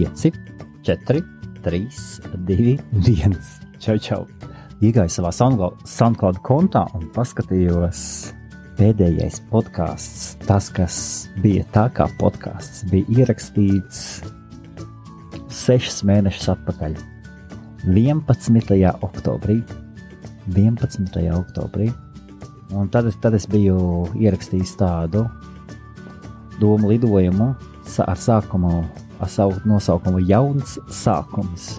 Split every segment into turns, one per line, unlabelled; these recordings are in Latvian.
5, 4, 3, 2, 1. Čau. Iegāju savā SoundCloud kontā un paskatījos pēdējais podcasts. Tas, kas bija tā kā podcasts, bija ierakstīts 6 mēnešus atpakaļ. 11. oktobrī. Un tad es biju ierakstījis tādu domu lidojumu ar savu nosaukumu Jauns sākums.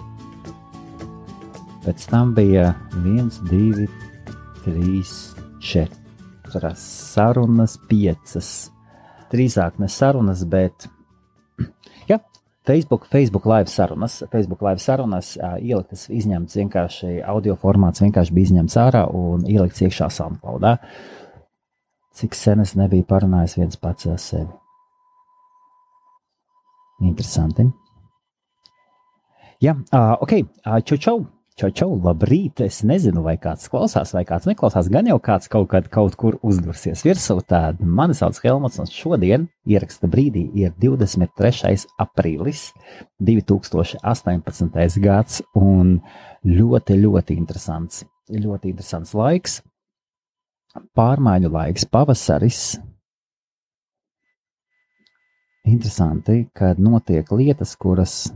Pēc tam bija 1, 2, 3, 4 sarunas, 5. Drīzāk ne sarunas, bet jā, Facebook live sarunas. Ieliktas, izņemts vienkārši audio formāts, vienkārši bija izņemts ārā un ielikts iekšā SoundCloudā. Cik sen es nebiju parunājis viens pats ar sevi. Interesanti. Jā, ok, čau, labrīt. Es nezinu, vai kāds klausās, vai kāds neklausās. Gan jau kāds kaut kur uzdursies virsū. Tad mani sauc Helmuts, un šodien ieraksta brīdī ir 23. aprīlis 2018. gads, un ļoti interesants laiks. Pārmaiņu laiks, pavasaris. Interesanti, kad notiek lietas, kuras,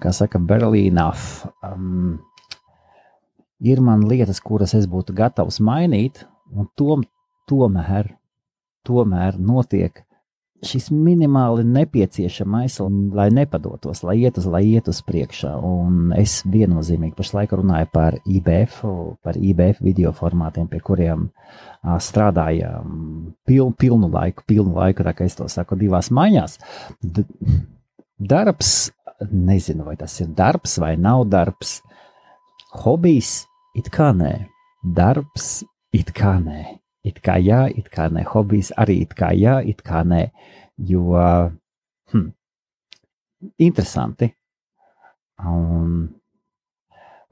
kā saka, barely enough. Ir man lietas, kuras es būtu gatavs mainīt, un tomēr notiek šis minimāli nepieciešamais, lai nepadotos, lai iet uz priekšā. Un es viennozīmīgi pašlaik runāju par IBF video formātiem, pie kuriem strādājām pilnu laiku, tā kā es to saku 2 maiņās. Darbs, nezinu, vai tas ir darbs vai nav darbs. Hobijs, it kā nē. Darbs, it kā nē. It kā jā, it kā nē. Hobijs arī it kā jā, it kā nē. Jo, interesanti. Un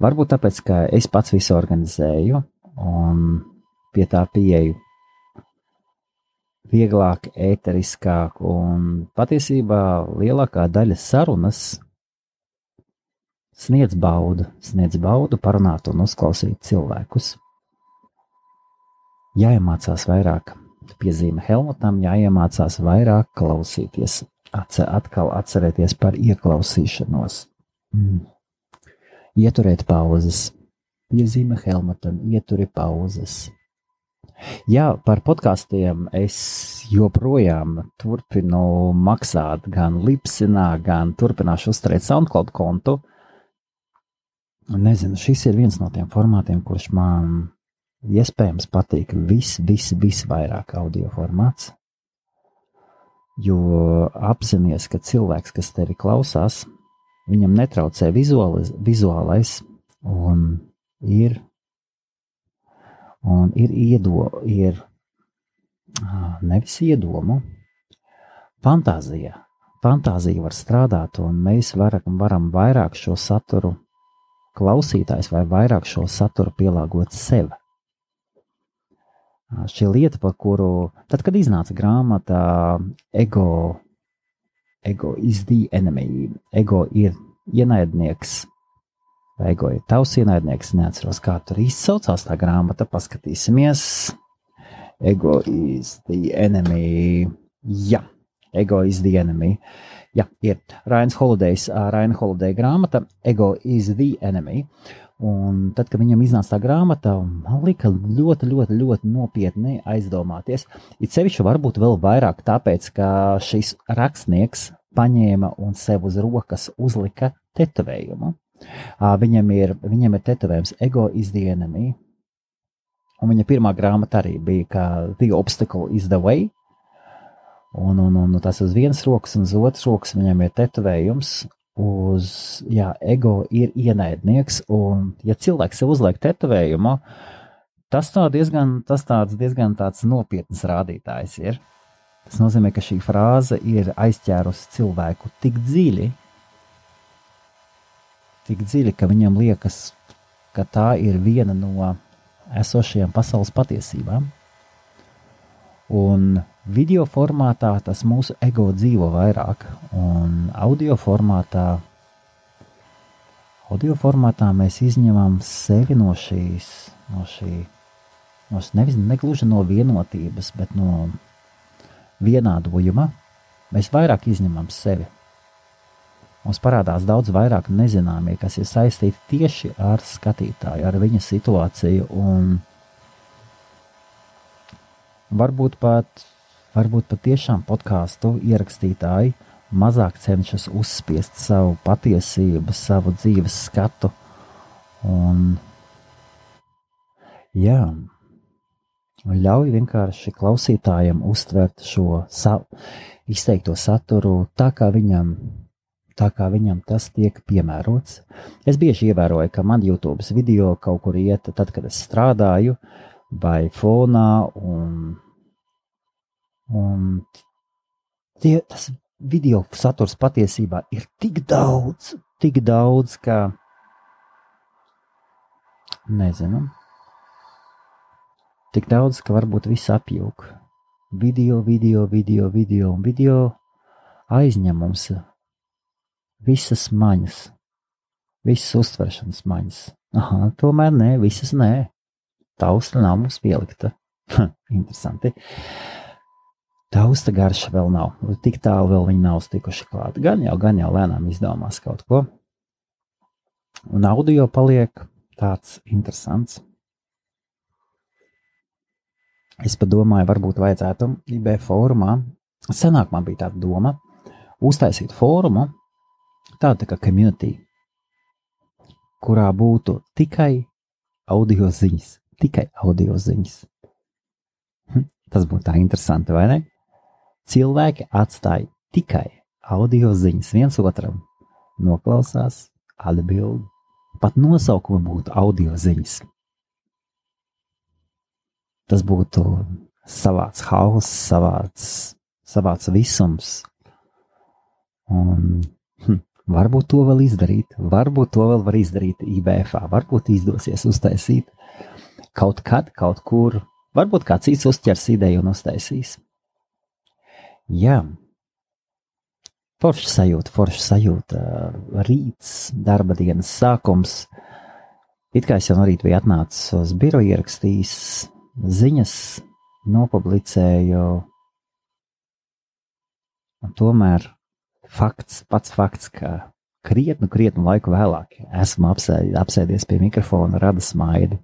varbūt tāpēc, ka es pats visu organizēju un pie tā pieeju vieglāk, ēteriskāk, un patiesībā lielākā daļa sarunas sniedz baudu parunāt un uzklausīt cilvēkus. Jāiemācās vairāk, piezīme Helmutam, jāiemācās vairāk klausīties, atkal atcerēties par ieklausīšanos. Ieturēt pauzes, piezīme Helmutam, ieturi pauzes. Jā, par podkastiem es joprojām turpinu maksāt gan Lipsinā, gan turpināšu uzturēt SoundCloud kontu. Nezinu, šis ir viens no tiem formātiem, kurš man iespējams patīk visvairāk audio formāts. Jo apzinies, ka cilvēks, kas tevi klausās, viņam netraucē vizuālais un ir nevis iedomu, fantāzija. Fantāzija var strādāt, un mēs varam vairāk šo saturu klausītājs vai vairāk šo saturu pielāgot sev. Šī lieta, par kuru, tad, kad iznāca grāmata Ego is the enemy, ego ir ienaidnieks, vai ego ir tavs ienaidnieks, neatceros, kā tur izsaucās tā grāmata, paskatīsimies. Ego is the enemy. Jā, Ego is the enemy. Jā, ir Ryan Holiday grāmata Ego is the enemy. Un tad, kad viņam iznāca tā grāmata, man lika ļoti nopietni aizdomāties. It sevišķi varbūt vēl vairāk tāpēc, ka šis rakstnieks paņēma un sev uz rokas uzlika tetovējumu. Viņam ir tetovējums Ego is the enemy. Un viņa pirmā grāmata arī bija, ka The Obstacle is the way. Un tas uz vienas rokas un uz otras rokas viņam ir tetovējums ego ir ienaidnieks. Un, ja cilvēks sev uzliek tetovējumu, tas diezgan tāds nopietns rādītājs ir. Tas nozīmē, ka šī frāze ir aizķērusi cilvēku tik dziļi, ka viņam liekas, ka tā ir viena no esošajām pasaules patiesībām. Un video formātā tas mūsu ego dzīvo vairāk, un audio formātā mēs izņemam sevi no negluži no vienotības, bet no vienādojuma. Mēs vairāk izņemam sevi. Mums parādās daudz vairāk nezināmie, kas ir saistīti tieši ar skatītāju, ar viņa situāciju, un varbūt pat tiešām podkāstu ierakstītāji mazāk cenšas uzspiest savu patiesību, savu dzīves skatu, un ļauj vienkārši klausītājiem uztvert šo izteikto saturu tā, kā viņam tas tiek piemērots. Es bieži ievēroju, ka man YouTube video kaut kur iet, tad, kad es strādāju, vai fonā, un tas video saturs patiesībā ir tik daudz, ka nezinu, tik daudz, ka varbūt viss apjūk. Video aizņem mums visas maņas, visas uztveršanas maņas. Aha, tomēr nē, visas nē. Tausta nav mums pielikta. Interesanti. Tausta garša vēl nav. Tik tālu vēl viņi nav stikuši klāt. Gan jau lēnām izdomās kaut ko. Un audio paliek tāds interesants. Es padomāju, varbūt vajadzētu IB fórumā. Senāk man bija tāda doma uztaisīt fórumu, tāda kā community, kurā būtu tikai audio ziņas. Tas būtu tā interesanti, vai ne? Cilvēki atstāja tikai audio ziņas viens otram, noklausās, atbild, pat nosaukumi būtu audio ziņas. Tas būtu savāds hauss, savāds visums. Un varbūt to vēl izdarīt, varbūt to vēl var izdarīt IBF-ā, varbūt izdosies uztaisīt kaut kad, kaut kur, varbūt kāds cits uzķers ideju un uztaisīs. Jā, forša sajūta, rīts, darba dienas sākums. It kā es jau no rīta biju atnācis uz biroju, ierakstījis ziņas, nopublicēju, un tomēr pats fakts, ka krietnu laiku vēlāk esmu apsēdies pie mikrofona, rada smaidu.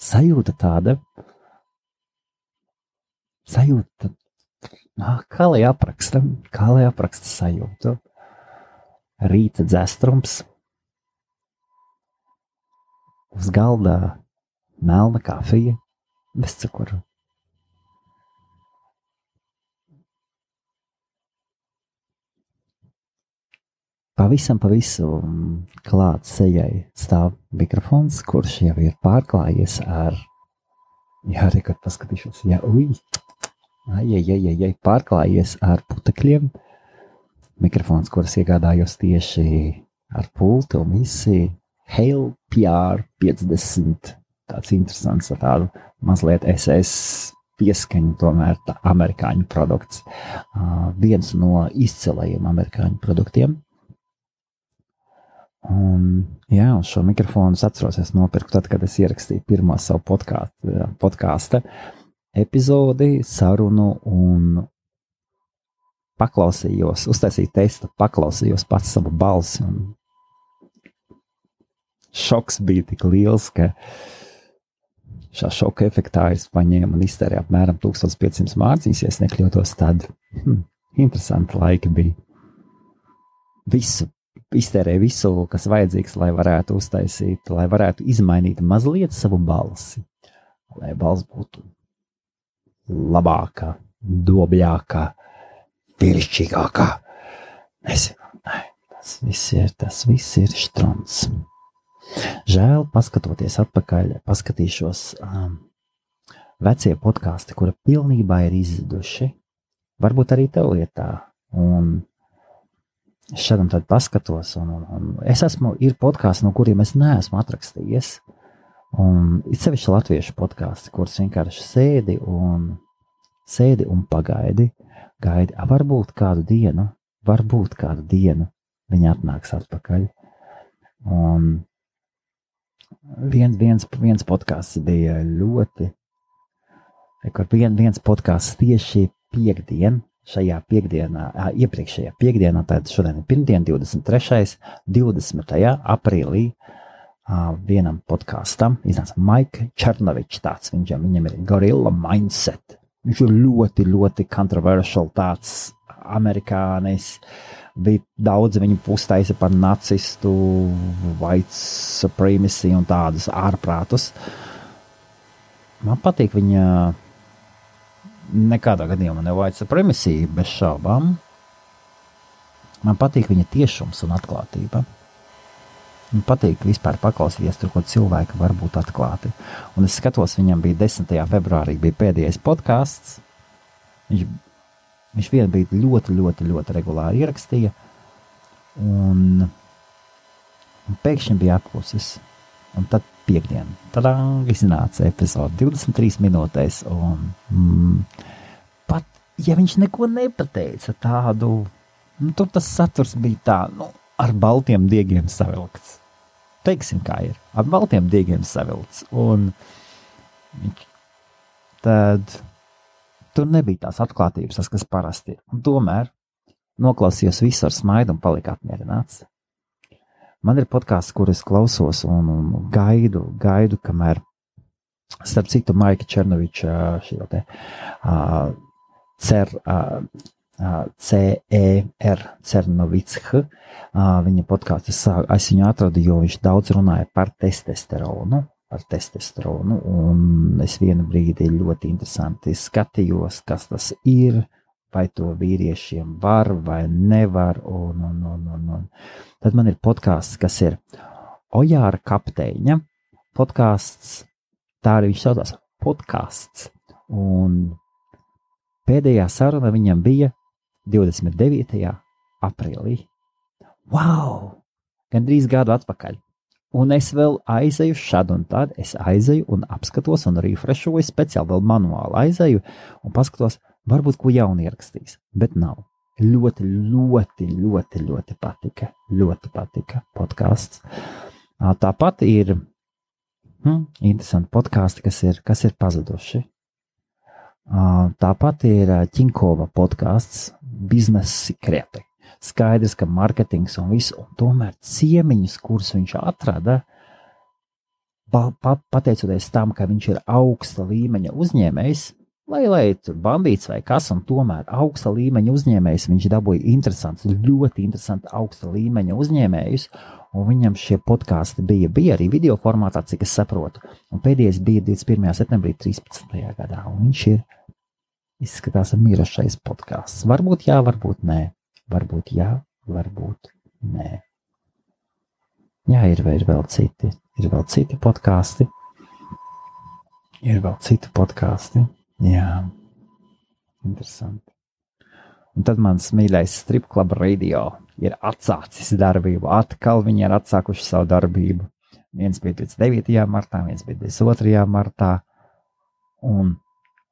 Sajūta tāda, kā lai apraksta sajūtu. Rīta dzestrums, uz galda melna kafija, bez cukuru. Pavisam klāt sejai stāv mikrofons, kurš jau ir pārklājies ar, rekord paskatīšos, pārklājies ar putekļiem. Mikrofons, kuras iegādājos tieši ar pulti un visi Hale PR50, tāds interesants, ar tādu mazliet SS pieskaņu, tomēr tā amerikāņu produkts. Viens no izcilajiem amerikāņu produktiem. Un šo mikrofonu es atceros, es nopirku tad, kad es ierakstīju pirmo savu podkāsta epizodi, sarunu un paklausījos, uztaisīju testu, paklausījos pats savu balsi un šoks bija tik liels, ka šā šoka efektā es paņēmu un iztērēju apmēram 1500 mārciņas, ja es nekļūtos, tad interesanti laiki bija. Iztērēju visu, kas vajadzīgs, lai varētu uztaisīt, lai varētu izmainīt mazliet savu balsi, lai balss būtu labākā, dobļākā, viršķīgākā. Tas viss ir štrons. Žēl, paskatoties atpakaļ, paskatīšos vecie podkāsti, kura pilnībā ir izzuduši. Varbūt arī tev ir tā. Un es šādam tad paskatos, un ir podkāsti, no kuriem es neesmu atrakstījies, un it sevišķi latviešu podkāsti, kurus vienkārši sēdi un pagaidi, varbūt kādu dienu viņi atnāks atpakaļ. Un viens podkāsts bija viens podkāsts tieši iepriekšējā piekdienā, tātad šodien ir pirmdien, 23. 20. aprīlī, vienam podkāstam iznāca Maika Černovičs tāds, viņam ir Gorilla Mindset. Viņš ir ļoti, ļoti controversial tāds amerikānis. Bija daudz viņu pustaisa par nacistu, white supremacy un tādus ārprātus. Man patīk viņa nekādā gadījumā ne white supremacy, bez šaubām. Man patīk viņa tiešums un atklātība. Man patīk vispār paklausīties tur, ko cilvēki var būt atklāti. Un es skatos, viņam bija 10. februārī bija pēdējais podkāsts. Viņš vienu brīdi ļoti, ļoti, ļoti regulāri ierakstīja, un pēkšņi bija apklusis. Un tad piekdien, iznāca epizode 23 minūtēs, un pat, ja viņš neko nepateica tādu, tur tas saturs bija tā, ar baltiem diegiem savilkts. Teiksim, kā ir, ar baltiem diegiem savilkts, un tad tur nebija tās atklātības, tas, kas parasti ir. Un tomēr noklausījos visu ar smaidu un palika apmierināts. Man ir podkāsts, kur es klausos un gaidu, kamēr, starp citu, Maika Černoviča Cernovičs, viņa podkāstu es viņu atradu, jo viņš daudz runāja par testosteronu, un es vienu brīdi ļoti interesanti skatījos, kas tas ir, vai to vīriešiem var vai nevar, un. Tad man ir podkāsts, kas ir Ojāra kapteiņa podkāsts, tā arī viņš saucās podkāsts, un pēdējā saruna viņam bija 29. aprīlī. Wow! Gandrīz gadu atpakaļ. Un es vēl aizēju šad un tad, es aizēju un apskatos un refreshoju, speciāli vēl manuāli aizēju un paskatos, varbūt ko jaunu ierakstīs, bet nav. Ļoti, ļoti, ļoti, ļoti patika podkāsts. Tāpat ir interesanti podkāsti, kas ir pazuduši. Tāpat ir Ķinkova podkāsts Biznesa sekreti. Skaidrs, ka marketings un viss, un tomēr ciemiņus, kurus viņš atrada, pateicoties tam, ka viņš ir augsta līmeņa uzņēmējs, lai tur bandīts vai kas, un tomēr augsta līmeņa uzņēmējs, viņš dabūja ļoti interesanti augsta līmeņa uzņēmējus, un viņam šie podkāsti bija arī video formātā, cik es saprotu, un pēdējais bija 21. septembrī 13. gadā, un viņš izskatās mirušais podkāsts. Varbūt jā, varbūt nē. Varbūt jā, varbūt nē. Jā, ir vēl citi podkāsti. Jā, interesanti. Un tad mans mīļais Strip Club Radio ir atsācis darbību. Atkal viņi ir atsākuši savu darbību. Viens bija 9. martā, viens bija 22. martā. Un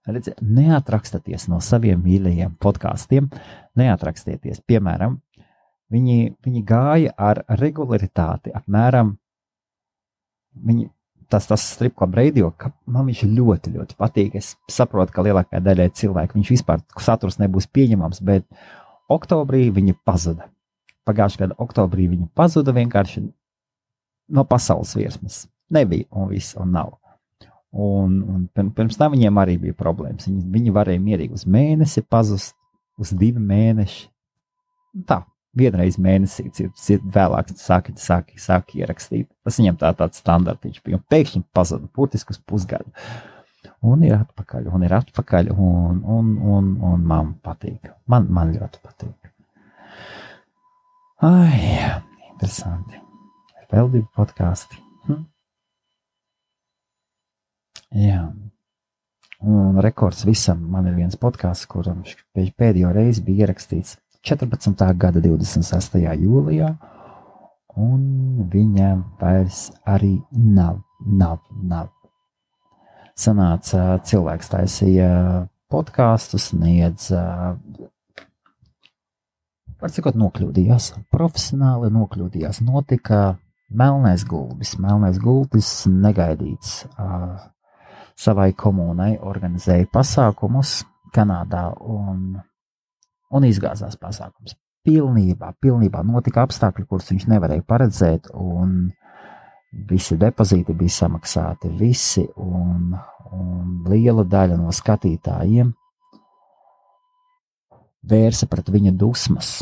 redziet, neatrakstaties no saviem mīļajiem podkāstiem, neatrakstieties. Piemēram, viņi gāja ar regularitāti apmēram, tas Strip Club Radio, ka man viņš ļoti, ļoti patīk. Es saprotu, ka lielākajai daļai cilvēku viņš vispār saturs nebūs pieņemams, bet oktobrī viņi pazuda. Pagājušajā gada oktobrī viņi pazuda vienkārši no pasaules virsmas. Nebija un viss, un nav. Un pirms tam viņiem arī bija problēmas. Viņi varēja mierīgi uz mēnesi pazust, uz 2 mēneši. Tā, vienreiz mēnesī, vēlāk sāk ierakstīt. Tas viņam tāds standartiņš bija. Un pēkšņi pazuda, burtiski uz pusgadu. Un ir atpakaļ, un man patīk. Man ļoti patīk. Ai, interesanti. Ir vēl 2 podkāsti. Jā, un rekords visam. Man ir viens podkāsts, kuram pēdējo reizi bija ierakstīts 14. gada 26. jūlijā, un viņa vairs arī nav. Sanāca cilvēks taisīja podkāstu, sniedz, var sakot, nokļūdījās, profesionāli nokļūdījās, notika melnais gulbis negaidīts savai komunai, organizēja pasākumus Kanādā un izgāzās pasākums. Pilnībā notika apstākļi, kurus viņš nevarēja paredzēt, un visi depozīti bija samaksāti, un liela daļa no skatītājiem vērsa pret viņa dusmas,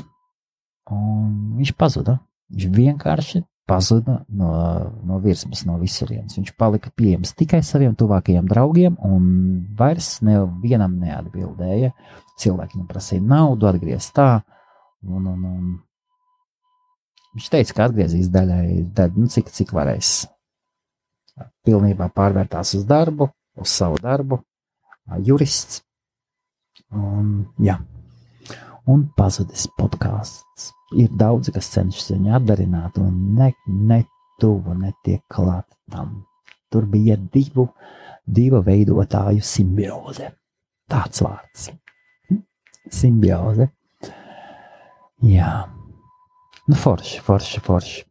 un viņš pazuda. Viņš vienkārši pazuda no virsmas, no visurienes. Viņš palika pieejams tikai saviem tuvākajiem draugiem, un vairs nevienam neatbildēja. Cilvēki viņam prasīja naudu, atgriezt tā, un viņš teica, ka atgriezīs daļu, cik varēs. Pilnībā pārvērtās uz darbu, uz savu darbu, jurists, un pazudis podkāsts. Ir daudzi, kas cenšas viņu atdarināt, un ne tuvu netiek klāt tam. Tur bija divu veidotāju simbioze. Tāds vārds. Simbioze. Jā. Nu, forši.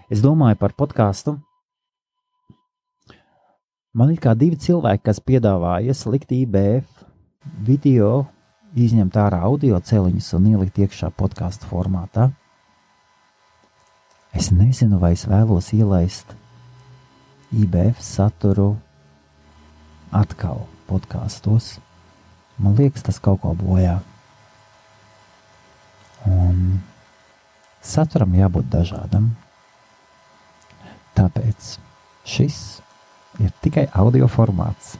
Es domāju par podkāstu. Man ir kā divi cilvēki, kas piedāvāja likt IBF video, izņemt ārā audio celiņus un ielikt iekšā podkāstu formātā. Es nezinu, vai es vēlos ielaist IBF saturu atkal podkāstos. Man liekas, tas kaut ko bojā. Un saturam jābūt dažādam. Tāpēc šis ir tikai audio formāts.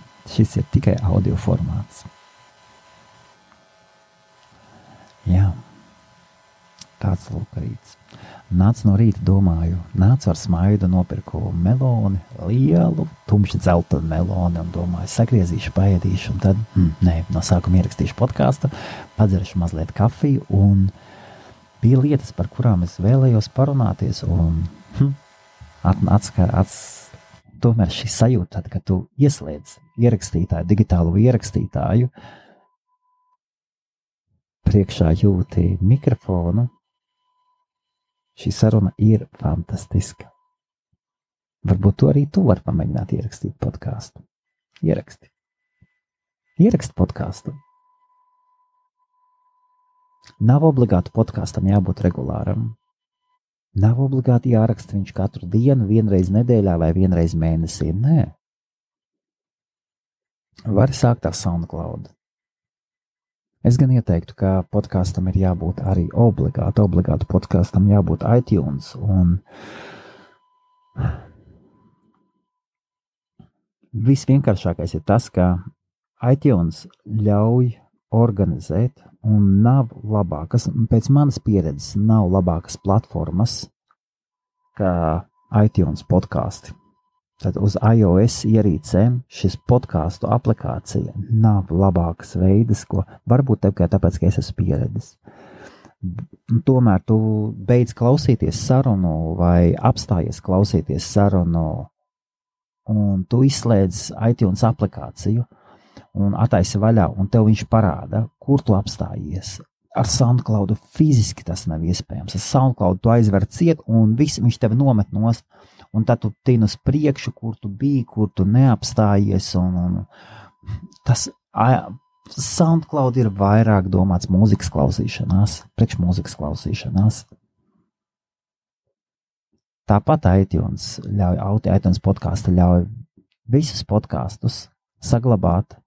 Jā, tāds lūk rīts. Nācu no rīta, domāju, nācu ar smaidu, nopirku meloni, lielu, tumši dzeltenu meloni, un domāju, sagriezīšu, paēdīšu, un tad, no sākuma ierakstīšu podkāstu, padzeršu mazliet kafiju, un bija lietas, par kurām es vēlējos parunāties, un tomēr šī sajūta, tad, kad tu ieslēdz ierakstītāju, digitālo ierakstītāju, priekšā jūti mikrofonu, šī saruna ir fantastiska. Varbūt to arī tu vari pamēģināt ierakstīt podkāstu. Ieraksti podkāstu. Nav obligāti podkāstam jābūt regulāram. Nav obligāti jāraksta viņš katru dienu, vienreiz nedēļā vai vienreiz mēnesī. Nē. Vari sākt ar SoundCloud. Es gan ieteiktu, ka podkāstam ir jābūt arī obligāti podkāstam jābūt iTunes, un visvienkāršākais ir tas, ka iTunes ļauj organizēt, un nav labākas, pēc manas pieredzes, nav labākas platformas kā iTunes podkāsti. Tad uz iOS ierīcēm šis podkāstu aplikācija nav labākas veidas, ko varbūt tikai tāpēc, ka es esmu pieredzis. Tomēr tu beidz klausīties sarunu vai apstājies klausīties sarunu, un tu izslēdz iTunes aplikāciju un attaisi vaļā, un tev viņš parāda, kur tu apstājies. Ar SoundCloud fiziski tas nav iespējams. Ar SoundCloud tu aizver ciet, un viņš tevi nomet nost. Un tad tu tini uz priekšu, kur tu biji, kur tu neapstājies, un tas SoundCloud ir vairāk domāts mūzikas klausīšanās, priekšmūzikas klausīšanās. Tāpat iTunes podkāstu ļauj visus podkāstus saglabāt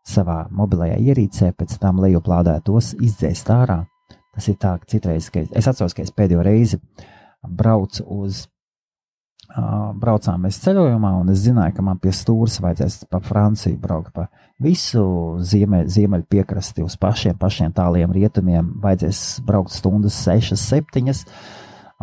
savā mobilajā ierīcē, pēc tam lejuplādētos izdzēst ārā. Tas ir tā, ka citreiz, es atceros, ka es pēdējo reizi braucām mēs ceļojumā, un es zināju, ka man pie stūres vajadzēs pa Franciju braukt pa visu ziemeļu piekrasti uz pašiem tāliem rietumiem, vajadzēs braukt stundas 6, 7,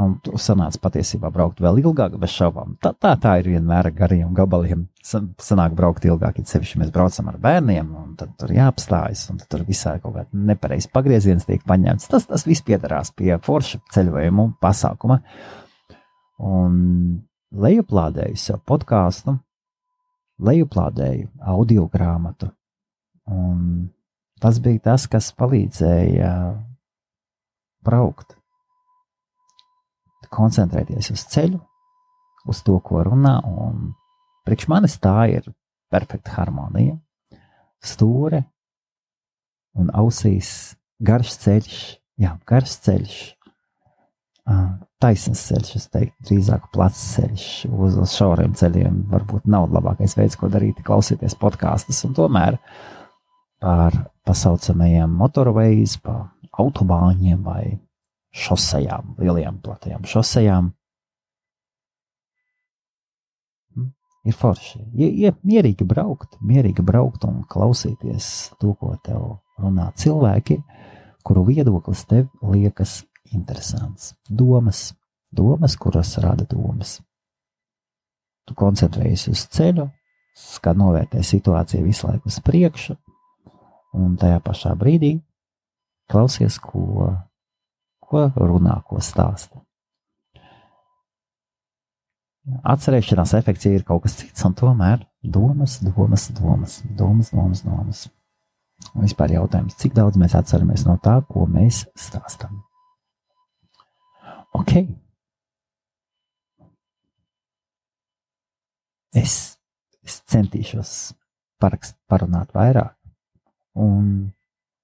Un sanāca patiesībā braukt vēl ilgāk, bez šaubām. Tā ir vienmēr ar gariem gabaliem. Sanāk braukt ilgāk, ja sevišķi mēs braucam ar bērniem, un tad tur jāapstājas, un tad tur visā kaut kāda nepareizs pagrieziens tiek paņemts. Tas viss piedarās pie forša ceļojumu pasākuma. Un lejuplādēju sev podkāstu, lejuplādēju audio grāmatu, un tas bija tas, kas palīdzēja braukt. Koncentrēties uz ceļu, uz to, ko runā, un priekš manis tā ir perfekta harmonija. Stūre un ausīs garš ceļš, taisns ceļš, es teiktu, drīzāk plats ceļš, uz šauriem ceļiem varbūt nav labākais veids, ko darīt, klausīties podkāstus, un tomēr par pasaucamajiem motorways, pa autobāņiem vai šosejām, lielajām, platajām šosejām. Ir forši. Mierīgi braukt un klausīties to, ko tev runā cilvēki, kuru viedoklis tev liekas interesants. Domas, kuras rada domas. Tu koncentrējies uz ceļu, kā novērtē situāciju visu laiku uz priekšu, un tajā pašā brīdī klausies, ko runā, ko stāsta. Atcerēšanās efekts ir kaut kas cits, un tomēr domas. Un vispār jautājums, cik daudz mēs atceramies no tā, ko mēs stāstam. Ok. Es centīšos parunāt vairāk, un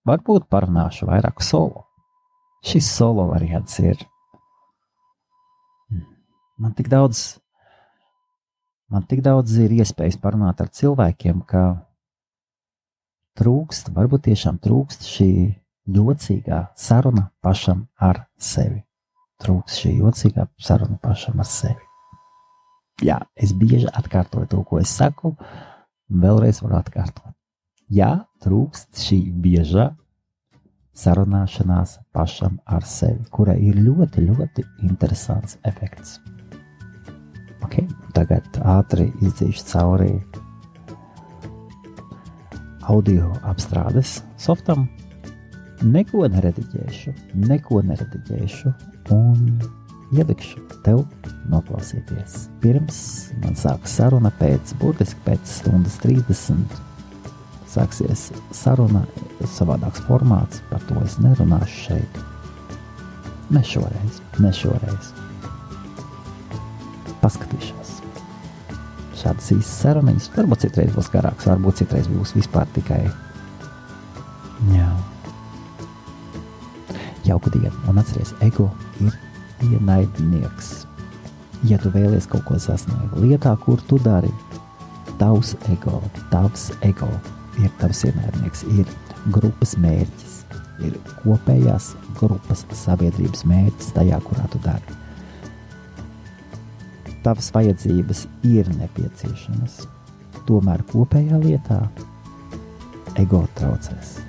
varbūt parunāšu vairāk solo. Šis solo variants ir man tik daudz ir iespējas parunāt ar cilvēkiem, ka varbūt tiešām trūkst šī jocīgā saruna pašam ar sevi. Jā, es bieži atkārtoju to, ko es saku, vēlreiz varu atkārtot. Jā, trūkst šī biežā sarunāšanās pašam ar sevi, kurai ir ļoti, ļoti interesants efekts. Ok, tagad ātri izdzīšu cauri audio apstrādes softam. Neko nerediģēšu un ielikšu tev noklausīties. Pirms man sāks saruna burtiski pēc stundas 30. Sāksies saruna, savādāks formāts, par to es nerunāšu šeit. Ne šoreiz. Paskatīšos. Šādas īstas saruniņas, varbūt citreiz būs garāks, varbūt citreiz būs vispār tikai jauku dienu. Un atceries, ego ir ienaidnieks. Ja tu vēlies kaut ko sasniegt lietā, kur tu dari, tavs ego ir tavs ienaidnieks, ir grupas mērķis, ir kopējās grupas sabiedrības mērķis tajā, kurā tu dari. Tavas vajadzības ir nepieciešamas, tomēr kopējā lietā ego traucēs.